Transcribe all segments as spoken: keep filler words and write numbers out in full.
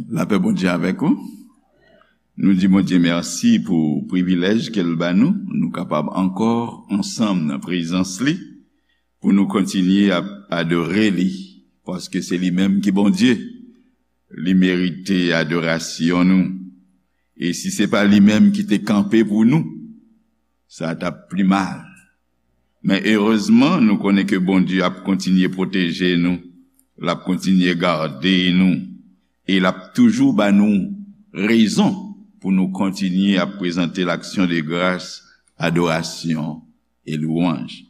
Lapè Bondye avèk ou. Nou di Bondye mèsi pou privilèj ke l ba nou. Nou kapab ankò ansanm nan prezans li pou nou kontinye ap adore li, paske se li menm ki Bondye. Li merite adorasyon nou. E si se pa li menm ki te kanpe pou nou, sa t ap pi mal. Men erezman, nou konnen ke Bondye ap kontinye pwoteje nou, l ap kontinye gade nou, e l ap toujou ba nou rezon pou nou kontinye ap prezante l aksyon de gras, adorasyon e lwanj.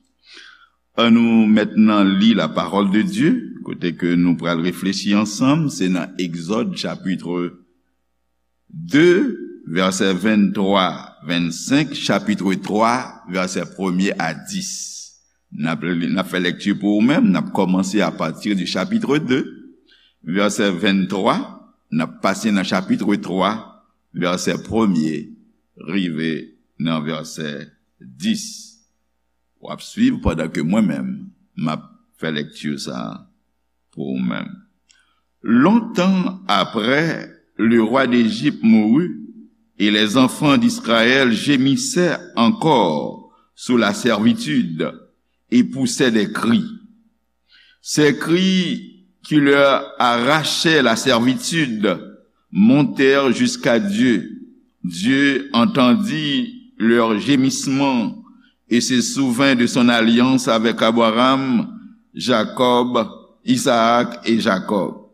Ann nou mentnan li la parole de Dieu, kote ke nou pral reflechi ansanm, se nan Egzòd chapit de, vèsè venntwa, vennsenk, chapit twa, vèsè premye a dis. N ap li, n ap fè lekti pou ou menm, n ap kòmanse apati di chapit de, vèsè venntwa, n ap pase nan chapit twa, vèsè premye, rive nan vèsè dis. W ap swiv pandan ke mwen menm, m ap fè lekti sa a pou ou menm. Longtemps après, le roi d'Égypte mourut, et les enfants d'Israël gémissaient encore sous la servitude et poussaient des cris. Ces cris qui leur arrachaient la servitude montèrent jusqu'à Dieu. Dieu entendit leurs gémissements et se souvint de son alliance avec Abraham, Jacob, Isaac et Jacob.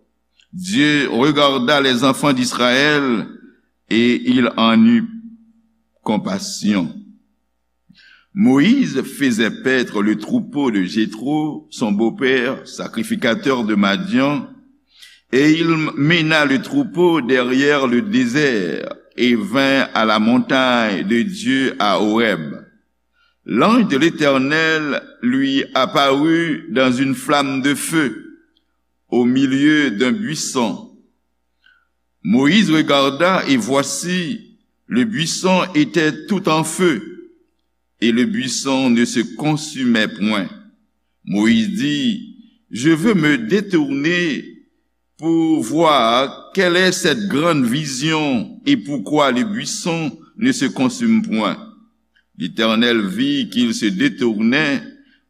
Dieu regarda les enfants d'Israël et il en eut compassion. Moïse faisait paître le troupeau de Jéthro, son beau-père, sacrificateur de Madian, et il mena le troupeau derrière le désert et vint à la montagne de Dieu à Horeb. L'ange de l'Éternel lui apparut dans une flamme de feu au milieu d'un buisson. Moïse regarda et voici, le buisson était tout en feu et le buisson ne se consumait point. Moïse dit, je veux me détourner pour voir quelle est cette grande vision et pourquoi le buisson ne se consume point. L'Éternel vit qu'il se détournait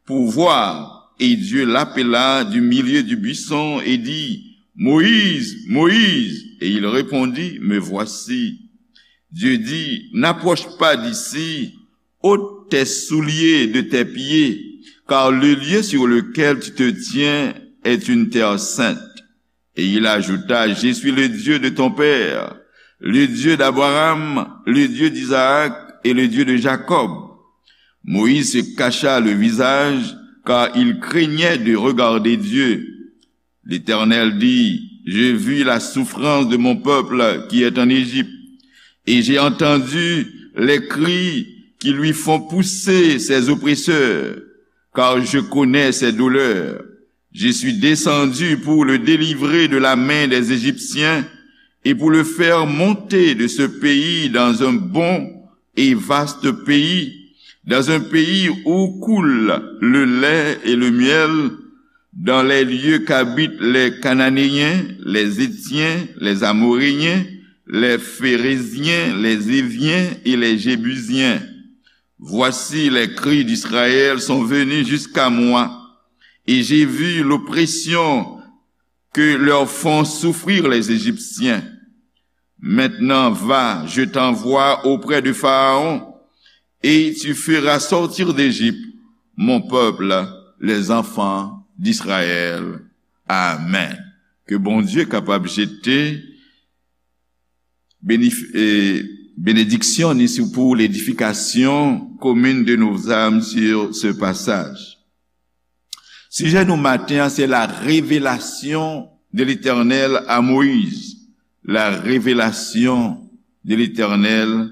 pour voir, et Dieu l'appela du milieu du buisson et dit, Moïse, Moïse, et il répondit, me voici. Dieu dit, n'approche pas d'ici, ôte tes souliers de tes pieds, car le lieu sur lequel tu te tiens est une terre sainte. Et il ajouta, je suis le Dieu de ton père, le Dieu d'Abraham, le Dieu d'Isaac et le Dieu de Jacob. Moïse se cacha le visage, car il craignait de regarder Dieu. L'Éternel dit, j'ai vu la souffrance de mon peuple qui est en Égypte, et j'ai entendu les cris qui lui font pousser ses oppresseurs, car je connais ses douleurs. Je suis descendu pour le délivrer de la main des Égyptiens et pour le faire monter de ce pays dans un bon et vaste pays, dans un pays où coule le lait et le miel, dans les lieux qu'habitent les Cananéens, les Héthiens, les Amoréens, les Phéréziens, les Éviens et les Jébusiens. Voici, les cris d'Israël sont venus jusqu'à moi, et j'ai vu l'oppression que leur font souffrir les Égyptiens. Maintenant va, je t'envoie auprès de Pharaon, et tu feras sortir d'Égypte mon peuple, les enfants d'Israël. Amen. Ke Bondye kapab jete benediksyon ni sou pou ledifikasyon komin de nos âmes sur ce passage. Sijè nou maten an se la revelasyon de Letènèl a Moyiz. La revelasyon de Letènèl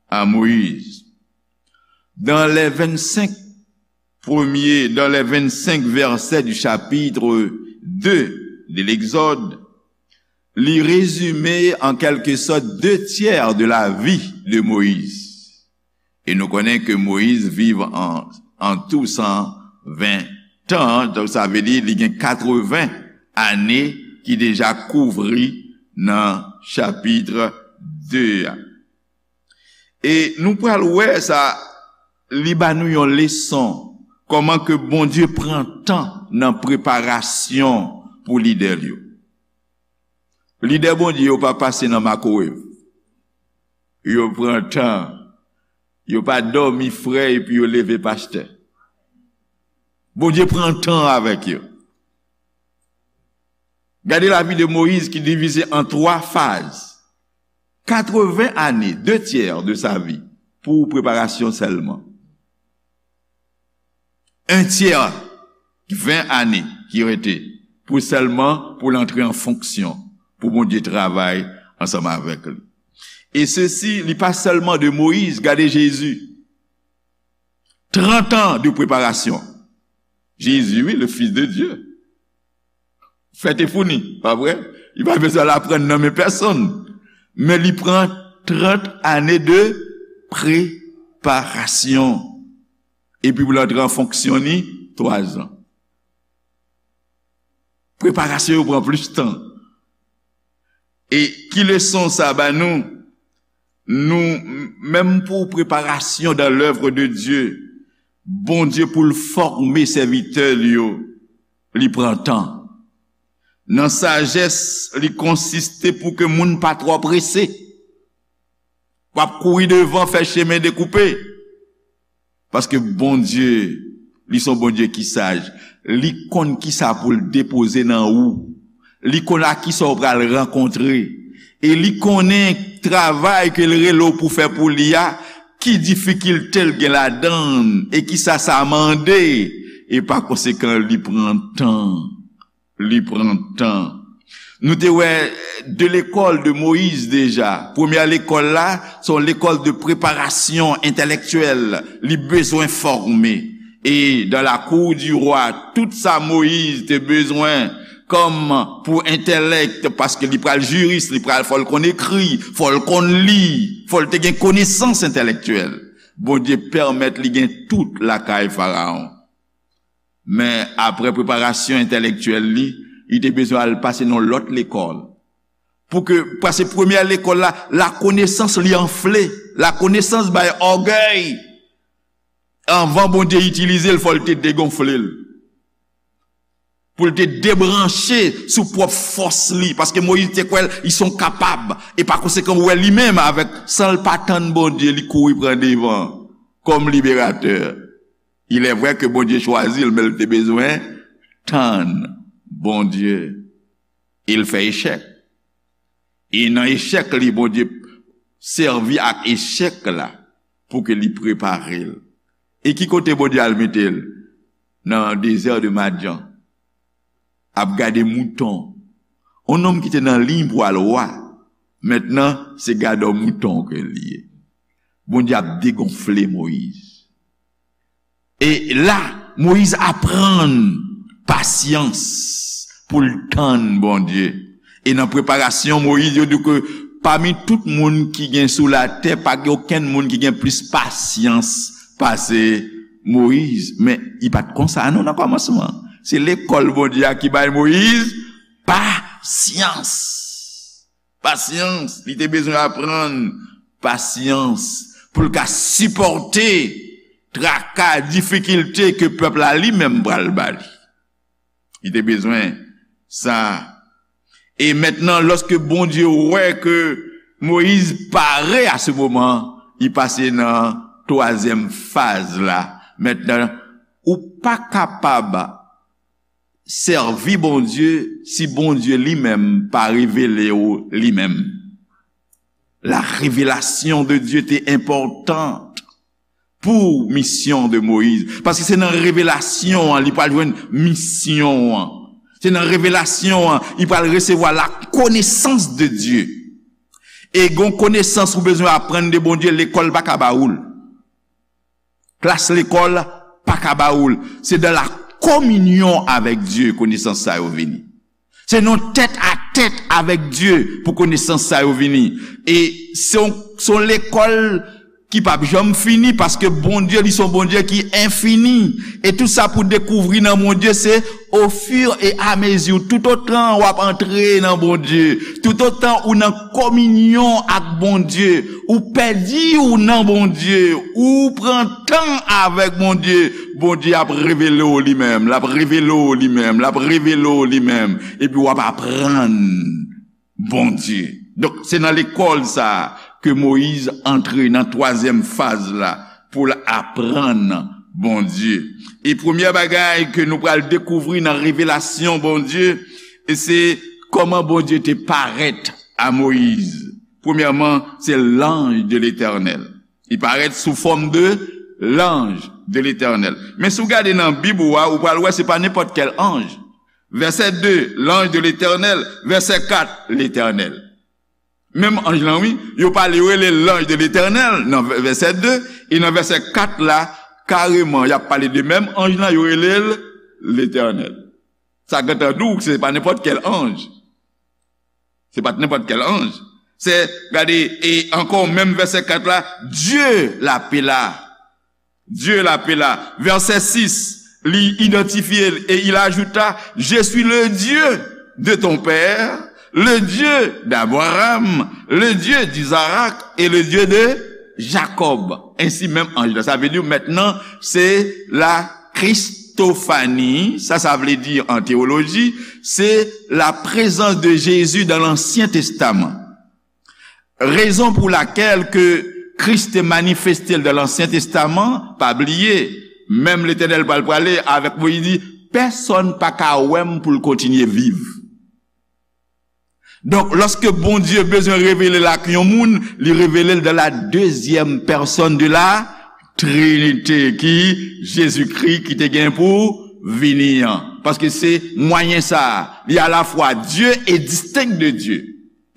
a Moyiz. Dans les vingt-cinq premiers, dans les vingt-cinq versets du chapitre deux de l'Exode, li rezime an kèlkesòt de tyè de la vi de Moyiz. E nou konnen ke Moyiz viv an, an tou san ven tan, donk sa vle di li gen katreven ane ki deja kouvri nan chapit de a. E nou pral wè sa, li ba nou yon leson, kòman ke Bondye pran tan nan preparasyon pou lidè l yo. Lidè Bondye yo pa pase nan makowev. Yo pran tan. Yo pa dòmi frè epi yo leve pastè. Bondye pran tan avèk yo. Gade lavi de Moyiz ki divize an twa faz. Katreven ane, de tyè de sa vi, pou preparasyon sèlman. Un tiers, ven ane ki rete pou sèlman pou l antre an fonksyon, pou Bondye travay ansanm avèk li. E sesi, li pa sèlman de Moyiz, gade Jezi. Trant an de preparasyon. Jezi, wi, le Fils de Dieu. Fè te founi, pa vre? Li pa bezwen al aprann nan men pèsonn. Men li pran trant ane de preparasyon. Epi pou l antre an fonksyon ni twa zan. Preparasyon yo pran plis tan. E ki leson sa ba nou? Nou, menm pou preparasyon dans l'œuvre de Dieu, Bondye pou l fòme sèvitè li yo, li pran tan. Nan sajès, li konsiste pou ke moun pa twò prese. W ap kouri devan, fè chemen dekoupe. Paske Bondye, li se yon Bondye ki saj. Li konn kisa pou l depoze nan ou. Li konn ak kisa w pral rankontre. E li konnen travay ke l rele w pou fè pou li a, ki difikilte l gen ladan l, e kisa sa mande. E pa konsekan, li pran tan. Li pran tan. Nou te wè de lekòl de Moyiz deja. Premyè lekòl la, se yon lekòl de preparasyon entèlektyèl. Li bezwen fòme. E dans la cour du roi, tout sa Moyiz te bezwen kòm pou entèlèk, paske li pral jiris, li pral, fò l konn ekri, fò l konn li, fò l te gen konesans entèlektyèl. Bondye pèmèt li gen tout lakay Farawon. Men apre preparasyon entèlektyèl li, li te bezwen al pase nan lòt lekòl. Pou ke, paske premyè lekòl la, lakonesans li anfle. Lakonesans bay ògèy. Anvan Bondye itilize l, fò l te degonfle l. Pou l te debranche sou pwòp fòs li. Paske Moyiz te kwè l, li se yon kapab. E pa konsekan, ou wè li menm avèk, san l pa tann Bondye, li kouri pran devan kòm liberatè. Il est vrai que Bondye chwazi l, men l te bezwen tann Bondye. E l fè echèk. E nan echèk li, Bondye sèvi ak echèk la pou ke li prepare l. E ki kote Bondye al mete l? Nan dezè de Madyan. Ap gade mouton. Yon nonm ki te nan liy pou al wa, mentnan se gadò mouton ke l ye. Bondye ap degonfle Moyiz. E la, Moyiz aprann pasyans pou l tann Bondye. E nan preparasyon Moyiz, yo di ke pami tout moun ki gen sou latè, pa gen okenn moun ki gen plis pasyans pase Moyiz. Men, li pa t konsa non nan kòmansman. Se lekòl Bondye a ki bay Moyiz pasyans. Pasyans, li te bezwen aprann pasyans pou l ka sipòte traka, difikilte ke pèp la li menm pral ba li. Li te bezwen sa. E mentnan, lòske Bondye wè ke Moyiz pare a se moman, li pase nan twazyèm faz la. Mentnan, ou pa kapab sèvi Bondye si Bondye li menm pa revele w li menm. La révélation de Dieu te enpòtan pou misyon de Moyiz. Paske se nan revelasyon an li pral jwenn misyon an. Se nan revelasyon an li pral resevwa la connaissance de Dieu. E gon konesans ou bezwen aprann de Bondye, lekòl pa ka ba ou l. Klas lekòl pa ka ba ou l. Se dans la communion avec Dieu konesans sa yo vini. Se nan tèt a tèt avèk Dye pou konesans sa yo vini. E se yon, se yon lekòl ki p ap janm fini, paske Bondye, li se yon Bondye ki enfini. E tout sa pou dekouvri nan Bondye, se ofiramezi, toutotan w ap antre nan Bondye, toutotan ou nan kominyon ak Bondye, ou pèdi w nan Bondye, ou pran tan avèk Bondye, Bondye ap revele w li menm, l ap revele w li menm, l ap revele w li menm, epi w ap aprann Bondye. Donk, se nan lekòl sa a ke Moyiz antre nan twazyèm faz la pou l aprann Bondye. E premyè bagay ke nou pral dekouvri nan revelasyon Bondye, e se kòman Bondye te parèt a Moyiz. Premyèman, se l'ange de l'Éternel. Li parèt sou fòm de l'ange de l'Éternel. Men si w gade nan Bib ou a, ou pral wè se pa nenpòt kèl anj. Vèsè de, l'ange de l'Éternel. Vèsè kat, l'Éternel. Menm anj lan, wi, yo pale, yo rele l l'ange de l'Éternel nan vè-, vèsè de, e nan vèsè kat la, kareman, y ap pale de menm anj lan, yo rele l l'Éternel. Sa gentan di w se pa nenpòt kèl anj. Se pa t nenpòt kèl anj. Se, gade, e ankò, menm vèsè kat la, Dieu l'appela. Dieu l'appela. Vèsè sis, li idantifye l, et il ajouta, je suis le Dieu de ton père, le Dieu d'Abraham, le Dieu d'Isaac et le Dieu de Jacob. Ensi menm anj la. Sa vle di, mentnan, se la Christophanie, sa, sa vle di an teyoloji, se la présence de Jésus dans l'Ancien Testament. Rezon pou lakèl ke Kris te manifeste l dan Lansyen Testaman, pa bliye, menm Letènèl pral prale avèk Moyiz, li di, pèsonn pa ka wè m pou l kontinye viv. Donk, lòske Bondye bezwen revele l ak yon moun, li revele l dan la dezyèm pèsonn de la Trinite, ki Jezikri ki te gen pou vini an. Paske se mwayen sa a, li alafwa Dye e distenk de Dye.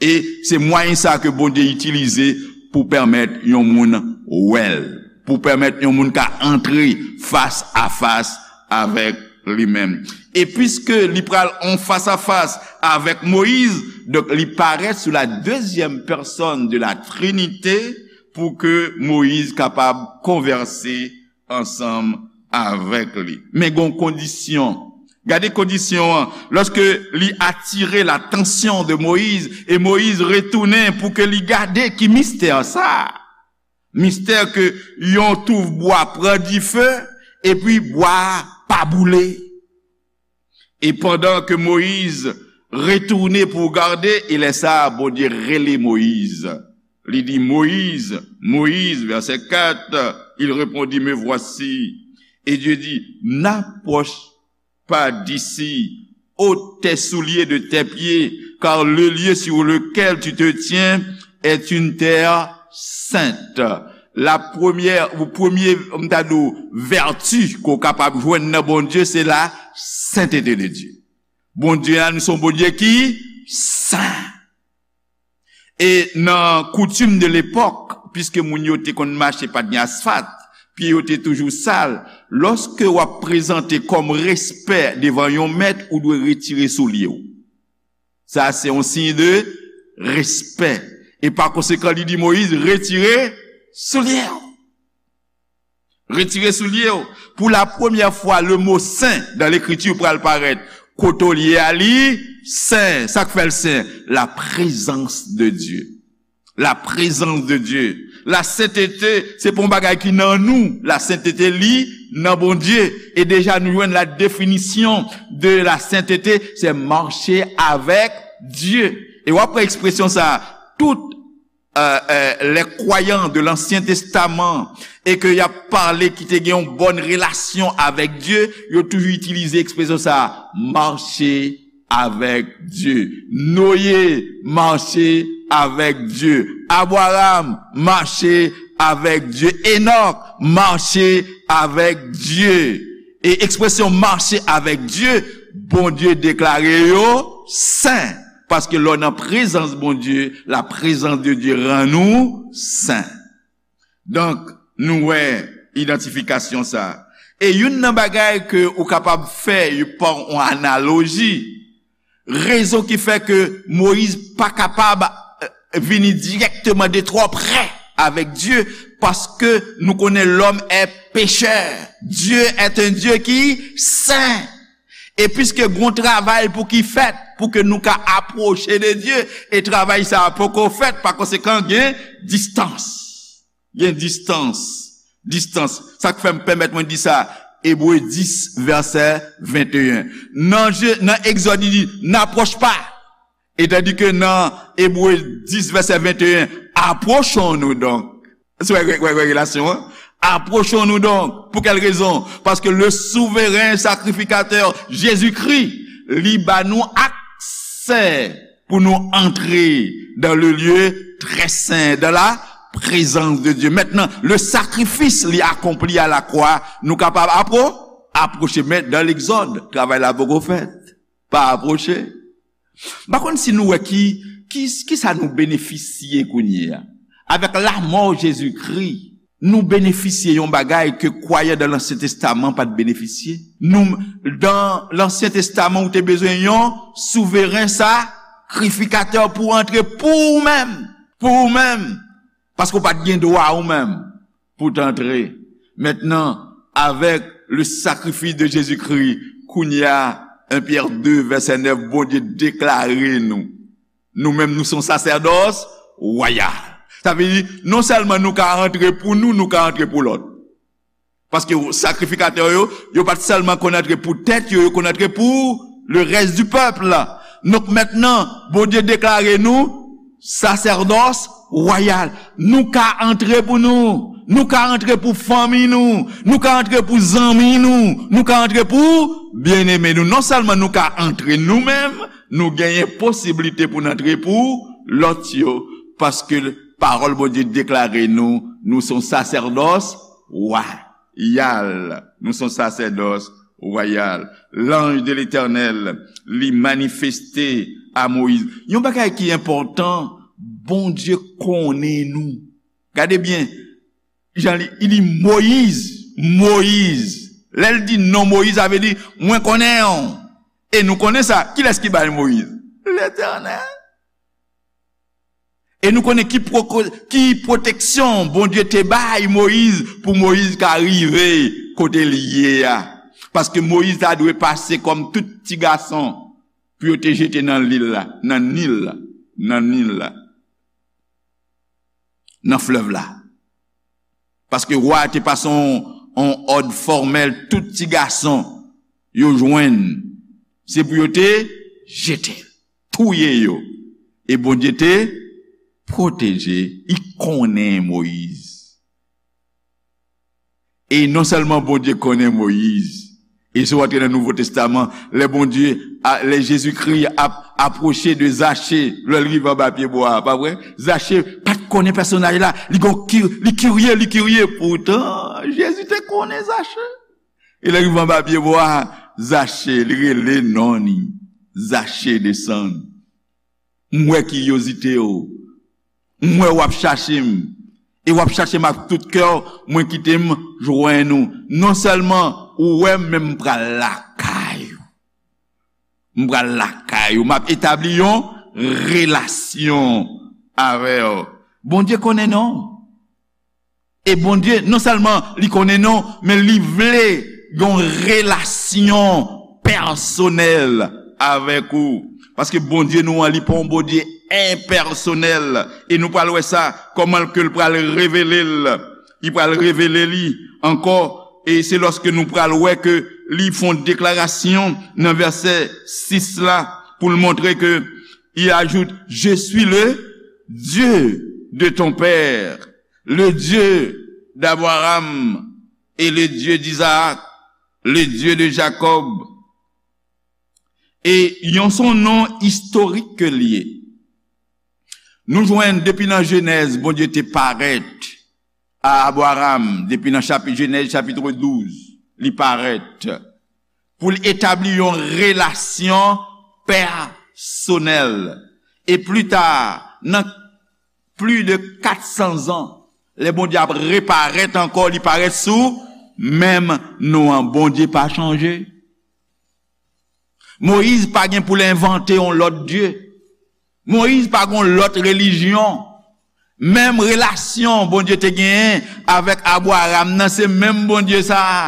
E se mwayen sa a ke Bondye itilize pou pèmèt yon moun wè l, pou pèmèt yon moun ka antre fas a fas avèk li menm. E piske li pral an fas a fas avèk Moyiz, donk li parèt sou la dezyèm pèsonn de la Trinite pou ke Moyiz kapab konvèse ansanm avèk li. Men gon kondisyon. Gade kondisyon an. Lòske li atire latansyon de Moyiz, e Moyiz retounen pou ke li gade ki mistè sa a. Mistè ke yon touf bwa pran dife, epi bwa a pa boule. E pandan ke Moyiz retounen pou gade, e lè sa a, Bondye rele Moyiz. Li di, Moyiz, Moyiz, vèsè kat, il répondit, me voici. Et Dieu dit, n'approche pas d'ici, ôte tes souliers de tes pieds, car le lieu sur lequel tu te tiens est une terre sainte. La premyè, ou premye, m ta di w, vèti ke w kapab jwenn nan Bondye, se la sentete de Dye. Bondye a, nou se yon Bondye ki sen. E nan koutim de lepòk, piske moun yo te konn mache, pa t gen asfalt, pye yo te toujou sal, lòske w ap prezante kòm respè devan yon mèt, ou dwe retire soulye w. Sa se yon siy de respè. E pa konsekan, li di Moyiz, retire soulye w. Retire soulye w. Pou la premyè fwa, le mo sen dan Lekriti pral parèt. Kote w ye a, li sen. Sa k fè l sen? La présence de Dieu. La présence de Dieu. La sentete, se pa yon bagay ki nan nou. La sentete, li nan Bondye. E deja, nou jwenn la definisyon de la sentete, se mache avèk Dye. E w ap wè ekspresyon sa a, tout euh, euh, les croyants de l'Ancien Testament, e ke y ap pale ki te gen yon bòn relasyon avèk Dye, yo toujou itilize ekspresyon sa a, mache avèk Dye. Noye mache avèk Dye. Abraram mache avèk Dye. Enòk mache avèk Dye. E ekspresyon mache avèk Dye, Bondye deklare yo sen. Paske lè w nan prezans Bondye, la présence de Dieu rann ou sen. Donk, nou wè idantifikasyon sa a. E youn nan bagay ke ou kapab fè pa yon analoji, rezon ki fè ke Moyiz pa kapab, eh, vini dirèkteman de twò prè avec Dieu, paske nou konnen lòm è pechè. Dieu est un Dieu ki sen. E piske gon travay pou ki fèt, pou ke nou ka apwoche de Dye, e travay sa a poko fèt, pa konsekan, gen distans. Gen distans. Distans. Sa k fè m pèmèt mwen di sa, Ebre dis, vèsè venteyen. Nan Je-, nan Egzòd, li di, n'approche pas. E tandi ke nan Ebre dis, vèsè venteyen, approchons-nous donc. Se wè, wè, wè, wè relasyon an. Approchons-nous donc. Pour quelle raison? Parce que le souverain sacrificateur Jésus-Christ, li ba nou aksè pou nou antre dans le lieu très saint, dans la présence de Dieu. Maintenant, le sacrifice li akonpli à la croix, nou kapab apro-, apwoche. Men dans l'Exode, travay la poko fèt. Pa apwoche. M pa konn si nou wè ki, ki, ki sa nou benefisye kounye a. Avec la mort Jésus-Christ, nou benefisye yon bagay ke kwayan dan Lansyen Testaman pa t benefisye. Nou, dan Lansyen Testaman, ou te bezwen yon souveren sakrifikatè pou antre pou ou menm. Pou ou menm. Paske w pa t gen dwa ou menm pou t antre. Mentnan, avec le sacrifice de Jésus-Christ, kounye a, en Pyè de, vèsè nèf, Bondye deklare nou. Nou menm, nou se yon sasèdòs wayal. Sa vle di, non sèlman nou ka antre pou nou, nou ka antre pou lòt. Paske sakrifikatè yo, yo pa t sèlman konn antre pou tèt yo, yo konn antre pou le reste du peuple. Donk mentnan, Bondye deklare nou sasèdòs wayal. Nou ka antre pou nou. Nou ka antre pou fanmi nou. Nou ka antre pou zanmi nou. Nou ka antre pou byeneme nou. Non sèlman nou ka antre nou menm, nou genyen posiblite pou n antre pou lòt yo. Paske pawòl Bondye deklare nou, nou se yon sasèdòs wayal. Nou se yon sasèdòs wayal. L'ange de l'Éternel, li manifeste a Moyiz. Yon bagay ki enpòtan, Bondye konnen nou. Gade byen, jan li, li di Moyiz, Moyiz. Lè l di non Moyiz, sa vle di, mwen konnen w. E nou konnen sa. Kilès ki bay Moyiz? Letènèl. E nou konnen ki pwoko-, ki pwoteksyon Bondye te bay Moyiz pou Moyiz ka rive kote l ye a. Paske Moyiz ta dwe pase kòm tout ti gason pou yo te jete nan lil la, nan Nil la, nan Nil la, nan flèv la. Paske wa a te pase yon, yon òd fòmèl, tout ti gason yo jwenn, se pou yo te jete l, touye yo. E Bondye te pwoteje, li konnen Moyiz. E non sèlman Bondye konnen Moyiz, e si w antre nan Nouvo Testaman, lè Bondye, a, lè Jezikri ap apwoche de Zache, lè l rive anba pye bwa a, pa vre? Zache pa t konnen pèsonaj la, li gon ki-, li kirye, li kirye. Poutan, Jezi te konnen Zache. E lè l rive anba pye bwa a, Zache, li rele non li. Zache, desann. M wè kiryozite w. M wè w ap chache m. E w ap chache m ak tout kè w, mwen kite m jwenn ou. Non sèlman ou wè m, men m pral lakay ou. M pral lakay ou. M ap etabli yon relasyon avè w. Bondye konnen non w. E Bondye, non sèlman li konnen non w, men li vle yon relasyon pèsonèl avèk ou. Paske Bondye nou an, li pa yon Bondye enpèsonèl. E nou pral wè sa, kòman ke l pral revele l. Li pral revele li ankò. E se lòske nou pral wè ke li fè yon deklarasyon nan vèsè sis la, pou l montre ke, il ajoute, je suis le Dieu de ton père, le Dieu d'Abraham et le Dieu d'Isaac, le Dieu de Jacob. E yon, se yon non istorik ke l ye. Nou jwenn depi nan Jenèz, Bondye te parèt a Abraram, depi nan chapit, Jenèz chapit douz, li parèt pou l etabli yon relasyon pèsonèl. E pli ta, nan plis de kat san zan, lè Bondye ap reparèt ankò, li parèt sou menm non an. Bondye pa chanje. Moyiz pa gen pou l envante yon lòt dye. Moyiz pa gen yon lòt relijyon. Menm relasyon Bondye te genyen avèk Abraram nan, se menm Bondye sa a.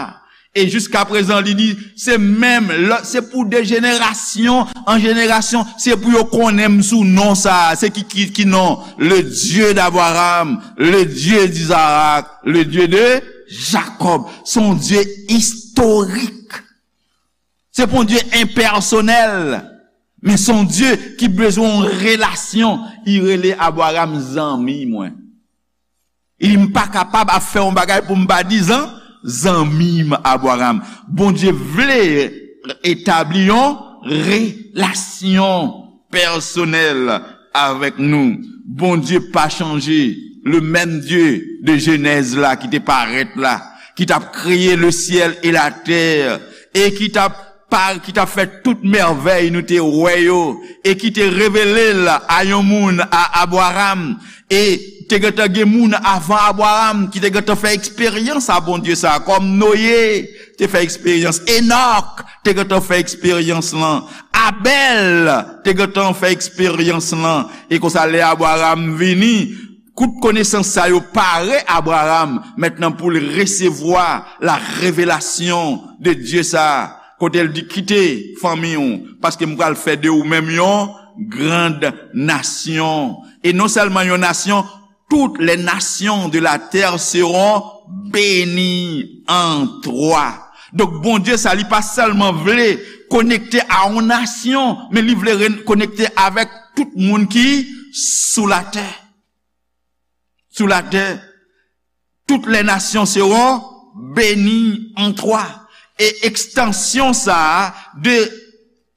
E jiskaprezan, li di, se menm, lè, se pou de jenerasyon an jenerasyon, se pou yo konnen m sou non sa a. Se ki, ki, ki non? Le Dieu d'Abraham, le Dieu d'Isaac, le Dieu de Jacob. Se yon Dye istorik. Se pa yon Dye enpèsonèl, men se yon Dye ki bezwen yon relasyon. Li rele Abraram zanmi mwen. Li di, m pa kapab ap fè yon bagay pou m pa di zan, zanmi m Abraram. Bondye vle etabli yon relasyon pèsonèl avèk nou. Bondye pa chanje. Le menm Dye de Jenèz la ki te parèt la, ki t ap kreye le syèl e latè, e ki t ap pa, ki t ap fè tout mèvèy nou te wè yo, e ki te revele l a yon moun, a Abraram, e te gentan gen moun avan Abraram ki te gentan fè eksperyans a Bondye sa, kòm Noye te fè eksperyans, Enòk te gentan fè eksperyans lan, Abèl te gentan fè eksperyans lan, e konsa lè Abraram vini, tout konesans sa yo pare Abraram mentnan pou l resevwa la revelasyon de Dye sa a, kote l di, kite fanmi w, paske m pral fè de ou menm yon grand nasyon. E non sèlman yon nasyon, toutes les nations de la terre seront bénies en toi. Donk, Bondye sa, li pa sèlman vle konekte a yon nasyon, men li vle re-, konekte avèk tout moun ki sou latè. Sou latè, toutes les nations seront bénies en toi. E ekstansyon sa a de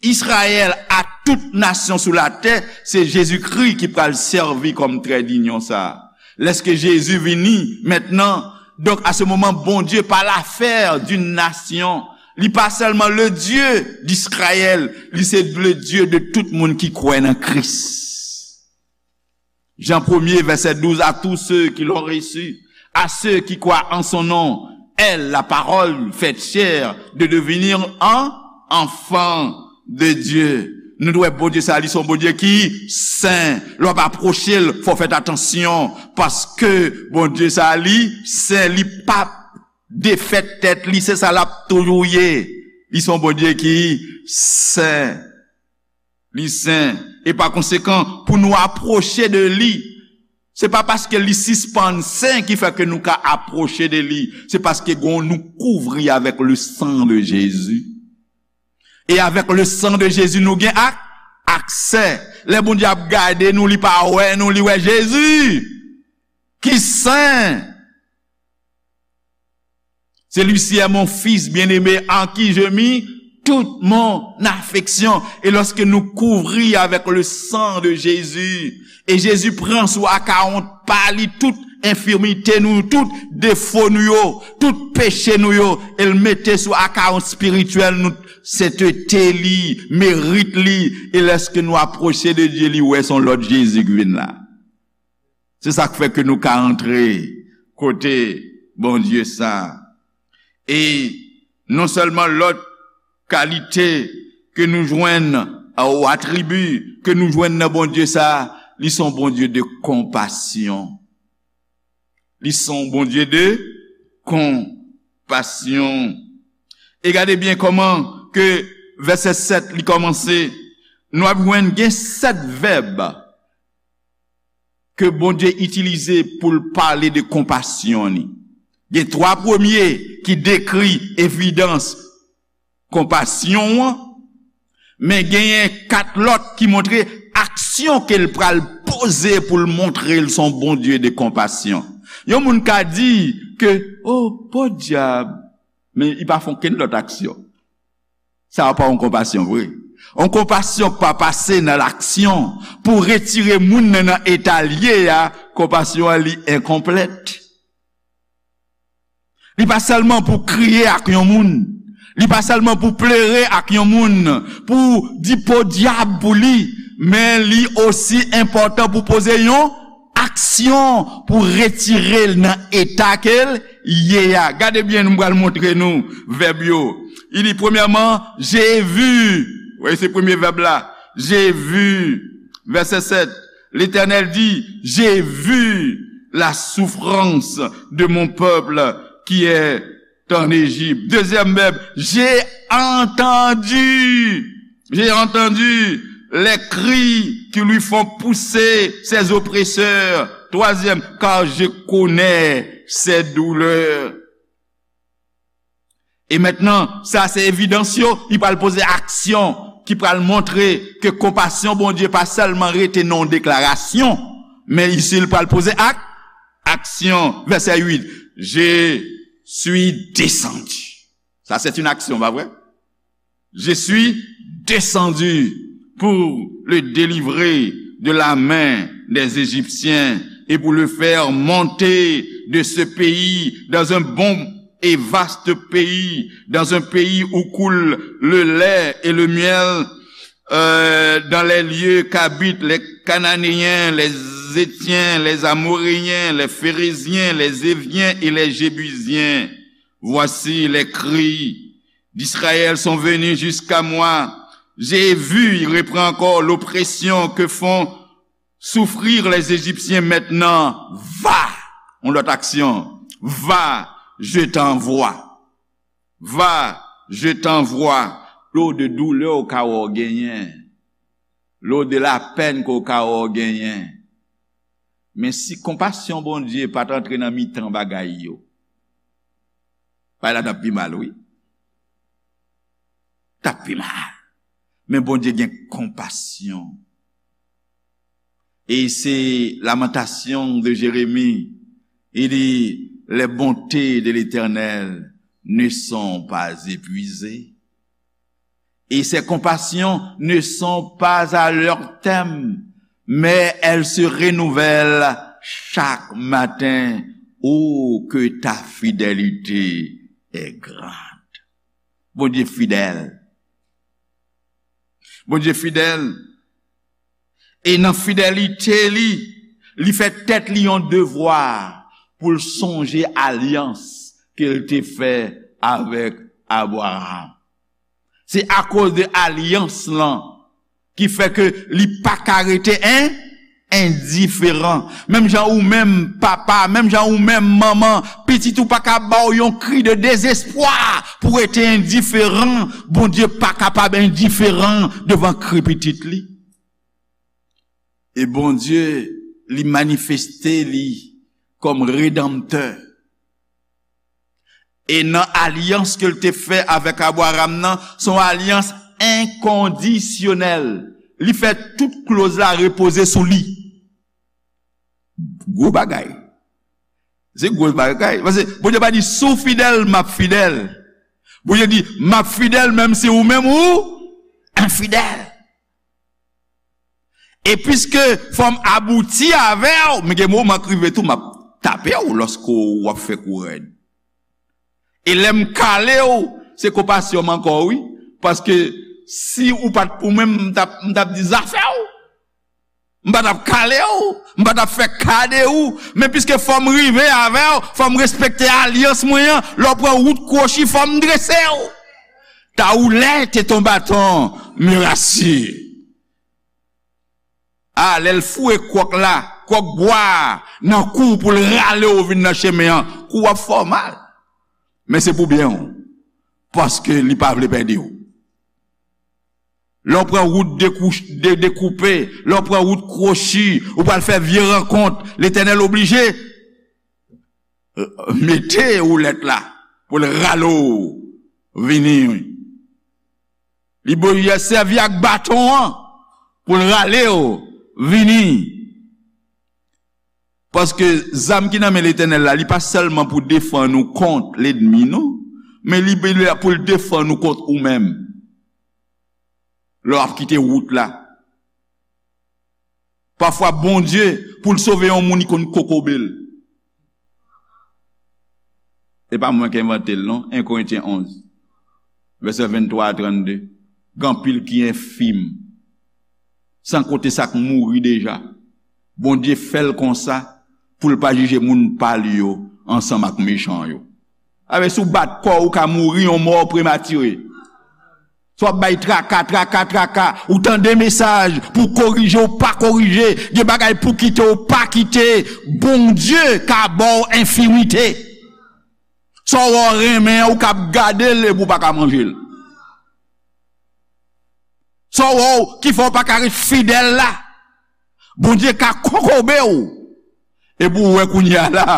Izrayèl a tout nasyon sou latè, se Jezikri ki pral sèvi kòm trè dinyon sa a. Lèske Jezi vini mentnan, donk, a se moman, Bondye pa l'affaire d'une nation. Li pa sèlman le Dieu d'Israël, li se le Dieu de tout moun ki kwè nan Kris. Jan premye, vèsè douz, à tous ceux qui l'ont reçu, à ceux qui croient en son nom, elle, la parole faite chair, de devenir un enfant de Dieu. Nou dwe Bondye sa, li se yon Bondye ki sen. Lè w ap apwoche l, fò w fè atansyon, paske Bondye sa, li sen, li p ap defèt tèt li, se sa l ap toujou ye. Li se yon Bondye ki sen. Li sen. E pa konsekan, pou nou apwoche de li, se pa paske li sispann sen ki fè ke nou ka apwoche de li. Se paske gon, nou kouvri avèk le sang de Jésus. E avèk le sang de Jésus, nou gen ak, aksè. Lè Bondye ap gade nou, li pa wè nou, li wè Jezi ki sen. Celui-ci est mon fils bien-aimé en qui je mis toute mon affection. E lòske nou kouvri avèk le sang de Jésus, e Jezi pran sou akawont pa li tout enfimite nou, tout defo nou yo, tout peche nou yo, e l mete sou akawont espirityèl nou, sentete li, merit li, e lèske nou apwoche de Dye, li wè se yon lòt Jezi ki vin la. Se sa k fè ke nou ka antre kote Bondye sa. E non sèlman lòt kalite ke nou jwenn, ou atribi ke nou jwenn nan Bondye sa, li se yon Bondye de konpasyon. Li se yon Bondye de konpasyon. E gade byen kòman ke vèsè sèt li kòmanse. Nou ap jwenn gen sèt vèb ke Bondye itilize pou l pale de konpasyon li. Gen twa premye ki dekri evidans konpasyon an, men genyen kat lòt ki montre aksyon ke l pral poze pou l montre l se yon Bondye de konpasyon. Yon moun ka di ke, "O, podyab, men li pa fè okenn lòt aksyon." Sa a pa yon konpasyon vre. Yon konpasyon k pa pase nan laksyon pou retire moun nan, nan eta l ye a, konpasyon an li enkonplèt. Li pa sèlman pou kriye ak yon moun. Li pa sèlman pou plere ak yon moun, pou di podyab pou li, men li osi enpòtan pou poze yon aksyon pou retire l nan eta ke l ye a. Gade byen, nou pral montre nou vèb yo. Li di, premyèman, j'ai vu. Wi, se premye vèb la. J'ai vu. Vèsè sèt. L'Éternel dit, j'ai vu la souffrance de mon peuple qui est en Égypte. Deuxième verbe, j'ai entendu. J'ai entendu les cris qui lui font pousser ses oppresseurs. Troisième, car je connais ses douleurs. E mentnan, sa se evidans yo, li pral poze aksyon ki pral montre ke konpasyon Bondye pa sèlman rete nan yon deklarasyon, men isi li pral poze ak, aksyon. Vèsè uit, je suis descendu. Sa se yon aksyon, pa vre? Je suis descendu pour le délivrer de la main des Égyptiens et pour le faire monter de ce pays dans un bon et vaste pays, dans un pays où coule le lait et le miel, euh, dans les lieux qu'habitent les Cananéens, les Héthiens, les Amoréens, les Phéréziens, les Éviens et les Jébusiens. Voici les cris d'Israël sont venus jusqu'à moi. J'ai vu, il reprend encore, l'oppression que font souffrir les Égyptiens maintenant. Va, yon lòt aksyon, va, je t'envoie. Va, je t'envoie. Lo de doulè w ka wè w genyen, lo de lapèn ke w ka wè w genyen. Men si konpasyon Bondye pa t antre nan mitan bagay yo, bagay la t ap pi mal, wi. T ap pi mal. Men Bondye gen konpasyon. E se Lamentations de Jérémie, il dit, les bontés de l'Éternel ne sont pas épuisées. Et ses compassions ne sont pas à leur terme, mais elles se renouvellent chaque matin. Oh, que ta fidélité est grande. Bondye fidèl. Bondye fidèl. E nan fidelite li, li fè tèt li yon devwa pou l sonje alyans ke l te fè avèk Abraram. Se akoz de alyans lan ki fè ke li pa ka rete en, endiferan. Menm jan ou menm papa, menm jan ou menm manman, pitit ou pa ka ba w yon kri de dezespwa pou rete endiferan. Bondye pa kapab endiferan devan kri pitit li. E Bondye, li manifeste li kòm redanmtè. E nan alyans ke l te fè avèk Abraram nan, se yon alyans enkondisyonèl. Li fè tout kloz la repoze sou li. Gwo bagay. Se gwo bagay. Paske Bondye pa di, "Si w fidèl, m ap fidèl." Bondye di, "M ap fidèl menm si ou menm ou enfidèl." E piske fò m abouti avè w, men gen moman k rive tou, m ap tape w lòske w ap fè kou rèd. E lè m kale w, se konpasyon m ankò, wi. Paske si ou pa t pou mwen, m t ap, m t ap di zafè w. M pa t ap kale w, m pa t ap fè ka de ou. Men piske fò m rive avè w, fò m respekte alyans mwen an, lè w pran wout kwochi, fò m drese w. Ta rouler, t'es ton bâton me rassure. A, lè l foure kwòk la, kwòk bwa a, nan kou w pou l rale w vin nan chemen an, kou w ap fè w mal. Men se pou byen w, paske li pa vle pèdi w. Lè w pran wout dekou-, de-, dekoupe, lè w pran wout kwochi, ou pral fè vye rankont, Letènèl oblije mete woulèt la pou l rale w vini. Li byen sèvi ak baton an pou l rale w vini. Paske zam ki nan men Letènèl la, li pa sèlman pou defann ou kont lènmi, non, men li la pou l defann ou kont ou menm. Lè w ap kite wout la, pafwa Bondye, pou l sove yon moun, li konn kokobe l. Se pa mwen ki envante l, non. En Korentyen onz, vèsè venntwa a trannde. Gen anpil ki enfim, san konte sa k mouri deja. Bondye fè l konsa pou l pa jije moun pa l yo ansanm ak mechan yo. Avè, si w bat kò w, ou ka mouri yon mò prematire. Sa w ap bay traka, traka, traka. Ou tande mesaj pou korije, ou pa korije. Gen bagay pou kite, ou pa kite. Bondye ka ba w enfimite. Sa w wè w renmen an, ou ka ap gade l epi w pa ka manje l. Sa w wè w ki fè w pa ka ret fidèl la. Bondye ka kokobe w. Epi w wè kounye a la,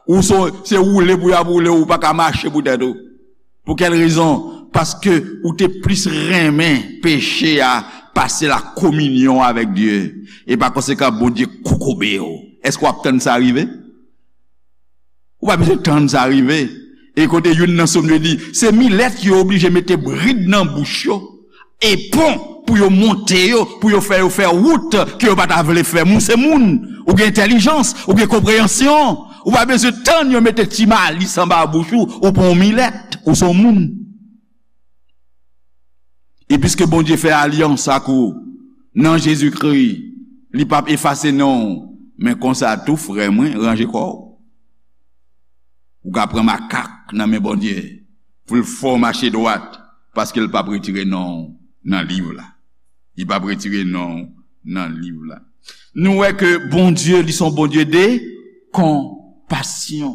ou se, se woule pou y ap woule w, ou pa ka mache pou tèt ou. Pou kèl rezon? Paske ou te plis renmen peche a pase la kominyon avèk Dye. E pa konsekan, Bondye kokobe w. Èske w ap tann sa rive? Ou pa bezwen tann sa rive. E kote youn nan Sòm yo di, se milèt yo oblije mete brid nan bouch yo, e pon pou yo monte yo, pou yo fè yo fè wout ke yo pa ta vle fè. Moun se moun, ou gen entèlijans, ou gen konpreyansyon, ou pa bezwen tann yo mete ti malis anba bouch ou, ou pa yon milèt, ou se yon moun. E piske Bondye fè alyans ak ou nan Jezikri, li p ap efase non w. Men konsa tou, frè mwen, ranje kò w. Ou ka pran makak nan men Bondye pou l fè w mache dwat, paske l p ap retire non w nan liv la. Li p ap retire non w nan liv la. Nou wè ke Bondye, li se yon Bondye de konpasyon.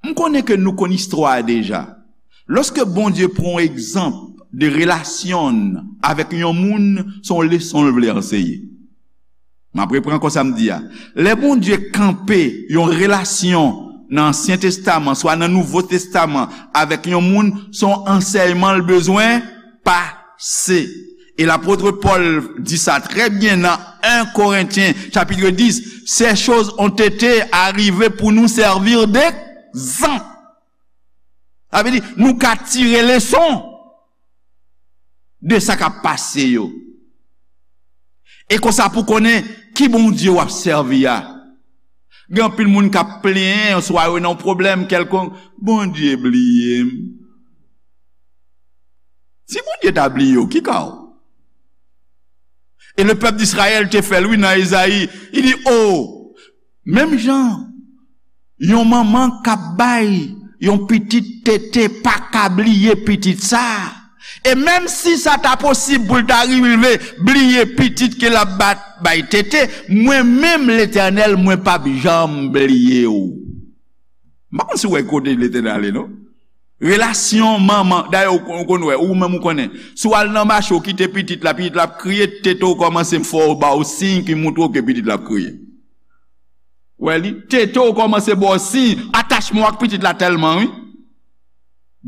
M konnen ke nou konn istwa a deja. Lòske Bondye pran yon egzanp de relasyon n avèk yon moun, se yon leson l vle anseye. M ap repran ankò sa m di a. Lè Bondye kanpe yon relasyon nan Ansyen Testaman, swa nan Nouvo Testaman, avèk yon moun, se yon ansèyman l bezwen pase. E lapot Pòl di sa trè byen nan en Korentyen, chapit dis, ces choses ont été arrivées pour nous servir d'exemple. Sa vle di, nou ka tire leson de sa k ap pase yo. E konsa pou konnen ki Bondye w ap sèvi a. Gen anpil moun k ap plenyen, swa yo nan yon pwoblèm kèlkonk, Bondye bliye m. Si Bondye ta bliye w, ki ka w? E le pèp d'Israël te fè l, wi, nan Ezayi. Li di, o, menm jan yon manman k ap bay yon pitit tete pa ka bliye pitit sa. E menm si sa ta posib pou l ta rive bliye pitit ke l ap bat, bay tete, mwen menm, Letènèl, mwen p ap janm bliye w. M pa konn si w wè kote Letènèl ale, non. Relasyon manman, dayè, ou, ou konn wè, ou menm ou konnen. Si w al nan mache, ou kite pitit la, pitit la ap kriye, tete w kòmanse fè w, ba w siy ki montre w ke pitit la ap kriye. Wè li, tete w kòmanse ba w siy, atachman w ak pitit la tèlman, wi.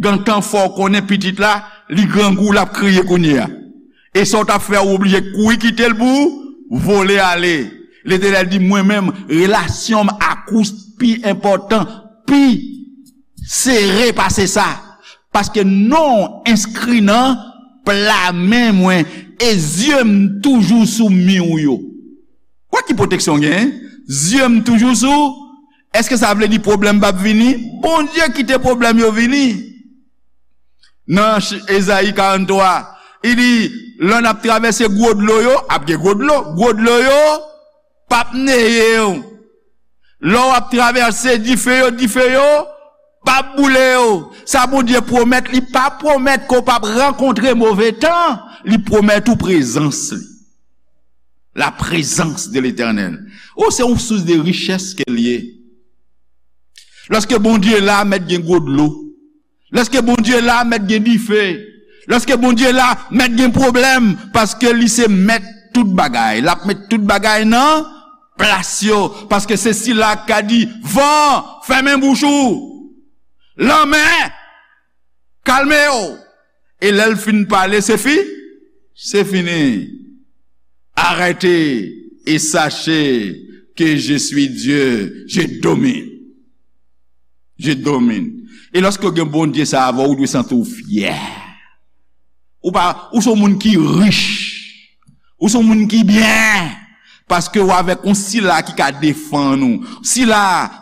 Gentan fè w konnen pitit la, li grangou, l ap kriye kounye a. E sa w t ap fè, ou oblije kouri kite l pou w vole ale. Letènèl di, mwen menm, relasyon m ak ou pi enpòtan, pi sere pase sa. Paske non w enskri nan pla men mwen, e zye m toujou sou mi w yo. Kwè ki pwoteksyon w genyen? Zye m toujou sou. Èske sa vle di pwoblèm p ap vini? Bondye kite pwoblèm yo vini. Nan ch-, Ezayi karanntwa, li di, lè n ap travèse gwo dlo yo, ap gen gwo dlo, gwo dlo yo p ap neye w. Lè w ap travèse dife yo, dife yo p ap boule w. Sa Bondye pwomèt, li pa pwomèt ke w p ap rankontre move tan, li pwomèt ou prezans li. La présence de l'Éternel. O, se yon sous de richès ke l ye. Lòske Bondye la, mèt gen gwo dlo. Lòske Bondye la, mèt gen dife. Lòske Bondye la, mèt gen pwoblèm, paske li se mèt tout bagay. L ap met tout bagay nan plas yo, paske se sila k ka di, van, fèmen bouch ou. Lanmè, kalme w. E lè l fin pale, se fi, se fini. Arrêtez et sachez que je suis Dieu, je domine. Je domine. E lòske w gen Bondye sa avè w, ou dwe santi w fyè. Ou pa, ou se yon moun ki rich. Ou se yon moun ki byen. Paske w avèk yon sila ki ka defann ou. Sila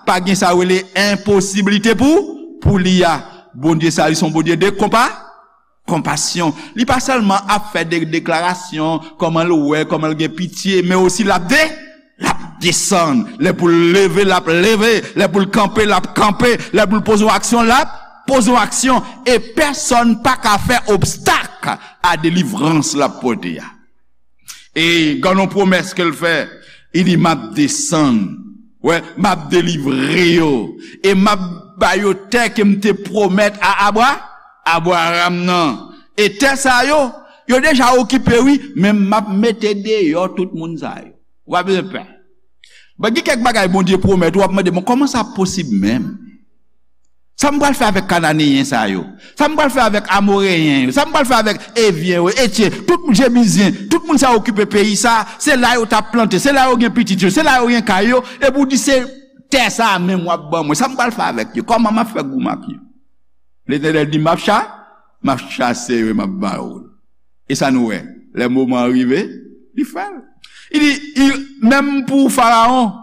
pa gen sa yo rele enposiblite pou, pou li a. Bondye sa, li se yon Bondye de konpa, konpasyon. Li pa sèlman ap fè de deklarasyon, kòman l wè, kòman l gen pitye, men osi l ap de, l ap desann. Lè pou l leve, l ap leve. Lè pou l kanpe, l ap kanpe. Lè pou l poze yon aksyon, l ap poze yon aksyon, e pèsonn pa ka fè obstak a delivrans l ap pote a. E gen yon pwomès ke l fè, li di, "M ap desann, wè, m ap delivre yo, e m ap ba yo tè ke m te pwomèt a Abra, Abraram nan." E tè sa yo, yo deja okipe, wi, men m ap mete deyò tout moun sa yo. Ou pa bezwen pè. Bon, gen kèk bagay Bondye pwomèt, w ap mande, "Bon, kòman sa posib menm? Sa m pral fè avèk Kananeyen sa yo? Sa m pral fè avèk Amoreyen yo? Sa m pral fè avèk Evyen yo, Etyen, tout Jebizyen, tout moun sa yo okipe peyi sa, se la yo t ap plante, se la yo gen pitit yo, se la yo gen kay yo, epi w di se tè sa a menm w ap ban mwen. Sa m pral fè avèk yo? Kòman m ap fè goumen ak yo?" Letènèl di, "M ap cha-, m ap chase yo e m ap ba yo l." E sa nou wè, lè moman an rive, li fè l. Li di, li, menm pou Farawon,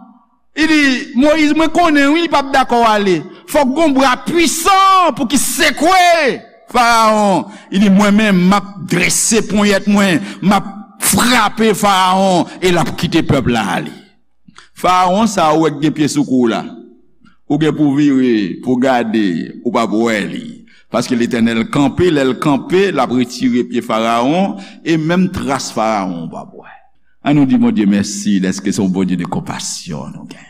li di, "Moyiz, mwen konnen, wi, li p ap dakò ale. Fòk gon bra pwisan pou ki sekwe Farawon." Li di, "Mwen menm, m ap drese ponyèt mwen, m ap frape Farawon, e l ap kite pèp la ale." Farawon sa ou wè k gen pye sou kou w la, ou gen pou vire, pou gade, ou p ap wè li. Paske Letènèl kanpe, lè l kanpe, l ap retire pye Farawon, e menm tras Farawon ou p ap wè. An nou di Bondye mèsi dèske se yon Bondye de konpasyon nou gen.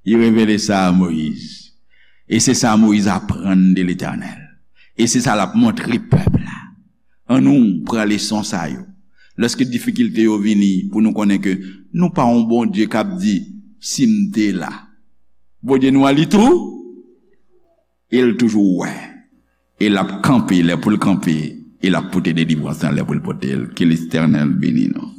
Li revele sa a Moyiz. E se sa Moyiz aprann de Letènèl. E se sa l ap montre pèp la. An nou pran leson sa yo. Lèske difikilte yo vini, pou nou konnen ke nou pa yon Bondye k ap di, "Si m te la." Bondye nou an, li tou, e l toujou wè. E l ap kanpe lè pou l kanpe, e l ap pote delivrans lan lè pou l pote l. Ke Letènèl beni nou.